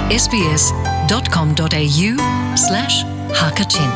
sbs.com.au slash hakachin.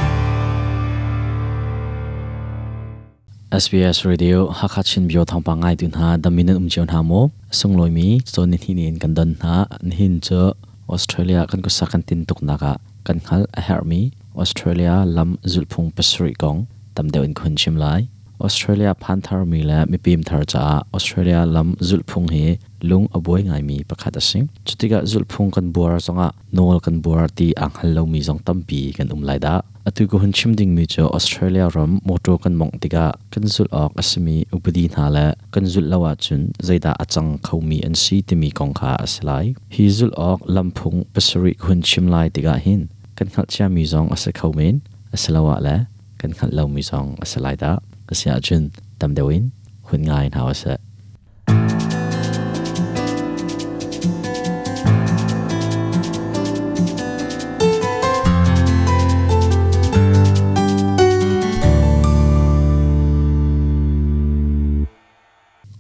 SBS Radio Hakha Chin Bio thawngpang ngai tu hna damin an um cio hna maw sunglawi mi cawn ni hnih in kan don hna nihin cu Australia kan kusa kan tin tuk nak ah kan hngal a herhmi Australia lam zulhphung pasarih kong tam deuh in khun chim lai. Australia phan tharmi le mipim thar caah Australia lam zulhphung hi lung a buai ngaimi pakhat a si. Cutikah zulhphung kan buar zongah nawl kan buar ti aa hngal lomi zong tampi kan um lai dah. Atu ka hun chim dingmi cu Australia ram motor kan mawngh tikah kan zulh awk a simi upadi hna le kan zulh lo ahcun zeidah a cang khomi an si timi kong kha a si lai. Hi zulh awk lamphung pasarih ka hun chim lai tikah hin kan hngalhciami zong a si kho men, asiloah le kan hngalh lomi zong a si lai dah. Asiahcun tam deuh in hun ngai hna usih.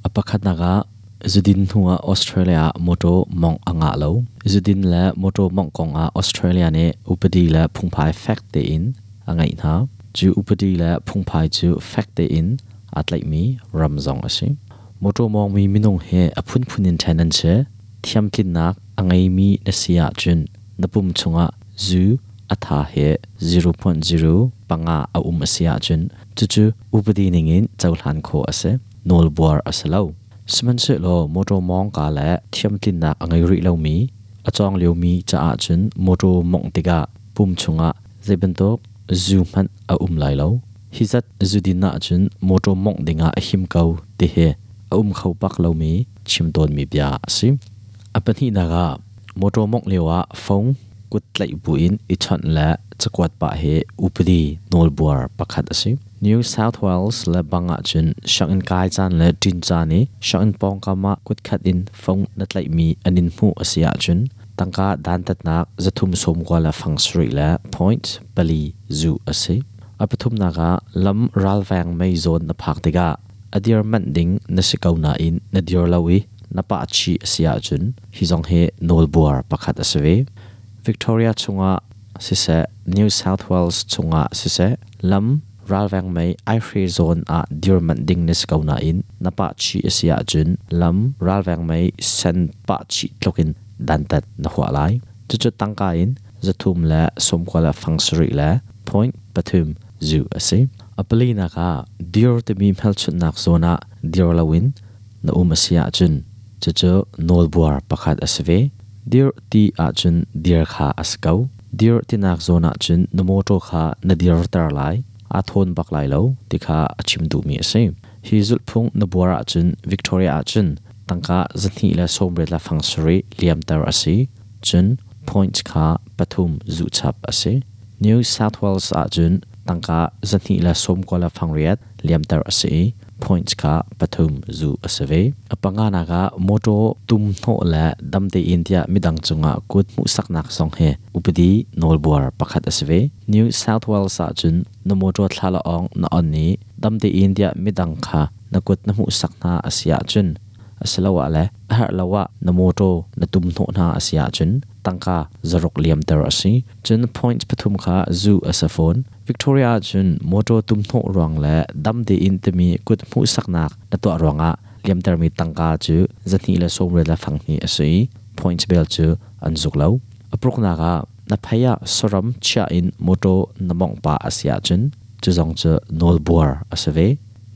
A pakhatnak ah zudin hnu ah Australia ah mawṭaw mawngh a ngah lo. Zudin le mawṭaw mawngh kong ah Australia nih upadi le phungphai fek tein a ngeih hna. Cu upadi le phungphai cu fek tein aa tlaihmi ram zong a si. Mawṭaw mawngmi minung hi a phunphun in ṭhen an si. Thiamtlinnak a ngeimi na si ahcun na pum chungah zu a tha he 0.0 panga a um a si ahcun cucu upadi ningin cohlan khawh a si. Nawlbuar a si lo. Sihmanhsehlaw mawṭaw mawngka le thiamtlinnak a ngei rih lomi, a cawng liomi caah cun mawṭaw mawngh tikah pum chungah zei bantuk zu hmanh a um lai lo. Hi zat zudin ahcun mawṭaw mawngh dingah a him ko ti hi a um kho bak lomi chim tawnmi bia a si. A pahnihnak ah mawṭaw mawngh lioah phone kut tlaih buin i chawnh le cakuat pah hi upadi nawlbuar pakhat a si. New South Wales le bang ahcun sianginn kai caan le ṭin caan i sianginn pawngkam ah kutkhat in phone na tlaihmi an in hmuh a si ahcun tangka dantatnak zathum sawmkua le fang sarih le point pali zuh a si. A pathumnak ah lam ralveng mei zawn na phak tikah a dir manh ding na si ko nain na dir lo i na pah chih a si ahcun hi zong hi nawlbuar pakhat a si ve. Victoria chungah siseh, New South Wales chungah siseh, lam ralveng mei aihre zawn ah dir manh ding na si ko nain na pah chih a si ahcun lam ralveng mei sen pah chih tluk in dantat na huah lai. Cucu tangka in zathum le sawmkua le fang sarih le point pathum zu a si. A palinak ah dir timi hmelchunhnak zawn ah dir loin na um a si ahcun cucu nawlbuar pakhat a si ve. Dir ti ahcun dir kha a si ko. Dir tinak zawn ahcun na mawṭaw kha na dirter lai, aa thawn bak lai lo ti kha a chim duhmi a si. Hi zulhphung na buar ahcun Victoria ahcun tangka zahnih le sawmriat le fang sarih liamter a si. Cun points kha pathum zuhchap a si. New South Wales ahcun tangka zahnih le sawmkua le fangriat liamter a si i points kha pathum zuh a si ve. A panganak ah mawṭaw tum hnawh le dam tein tiah midang cungah kut hmuhsaknak zong hi upadi nawlbuar pakhat a si ve. New South Wales ahcun na mawṭaw thlalaawng na on i dam tein tiah midang kha na kut na hmuhsak hna a si ahcun asiloah le a herh lo ah na mawṭaw na tum hnawh hna a si ahcun tangka zaruk liamter a si. Cun points pathum kha zu a si fawn. Victoria ahcun mawṭaw tum hnawh ruang le dam tein timi kut hmuhsaknak na tuah ruangah liamtermi tangka cu zahnih le sawmriat le fanghnih a si i points bel cu an zuk lo. A pruknak ah na phei ah saram chiah in mawṭaw na mawngh pah a si ahcun cu zong cu nawlbuar a si ve.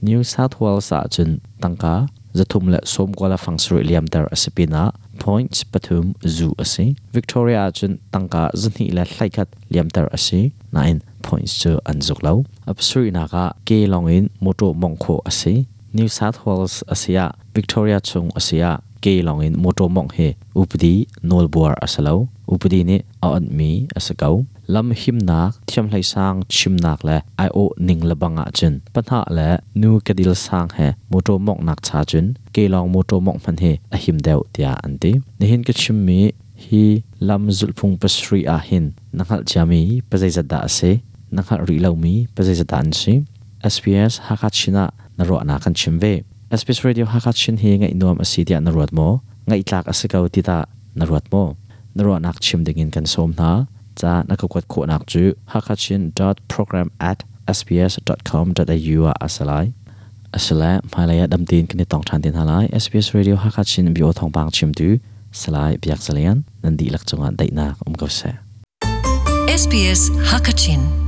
New South Wales ahcun tangka zathum le sawmkua le fang sarih liamter a si pinah points pathum zu a si. Victoria ahcun tangka zahnih le hleikhat liamter a si nain points cu an zuk lo. A pasarihnak ah ke lawngin mawṭaw mawngh khawh a si. New South Wales a si ah Victoria chung a si ah ke lawngin mawṭaw mawngh hi upadi nawlbuar a si lo. Upadi nih a onhmi a si ko. Lam himnak, thiamhleisang chimnak le aiawh ning lebang ahcun pahnah le nu kedil sang he mawṭaw mawnghnak cha cun kelawng mawṭaw mawngh hmanh hi a him deuh tiah an ti. Nihin ka chimmi hi lam zulhphung pasarih ah hin na hngalh ciami pazeizat dah a si? Na hngalh rih lomi pazeizat dah an si? SBS Hakha Chin ah na ruahnak kan chim ve. SBS Radio Hakha Chin hi ngaih nuam a si tiah na ruat maw? Ngaih tlak a si ko ti tah na ruat maw? Na ruahnak chim dingin kan sawm hna. Ca na ka kuat khawhnak cu hakachin.program at sbs.com.au ah a si lai. Asile hmailei ah damtein kan i tong ṭhan te hna lai. SBS Radio Hakachin bio thawngpang chimtu Salai Biak Zalian nan dihlak cungah daihnak um ko seh. SBS Hakachin.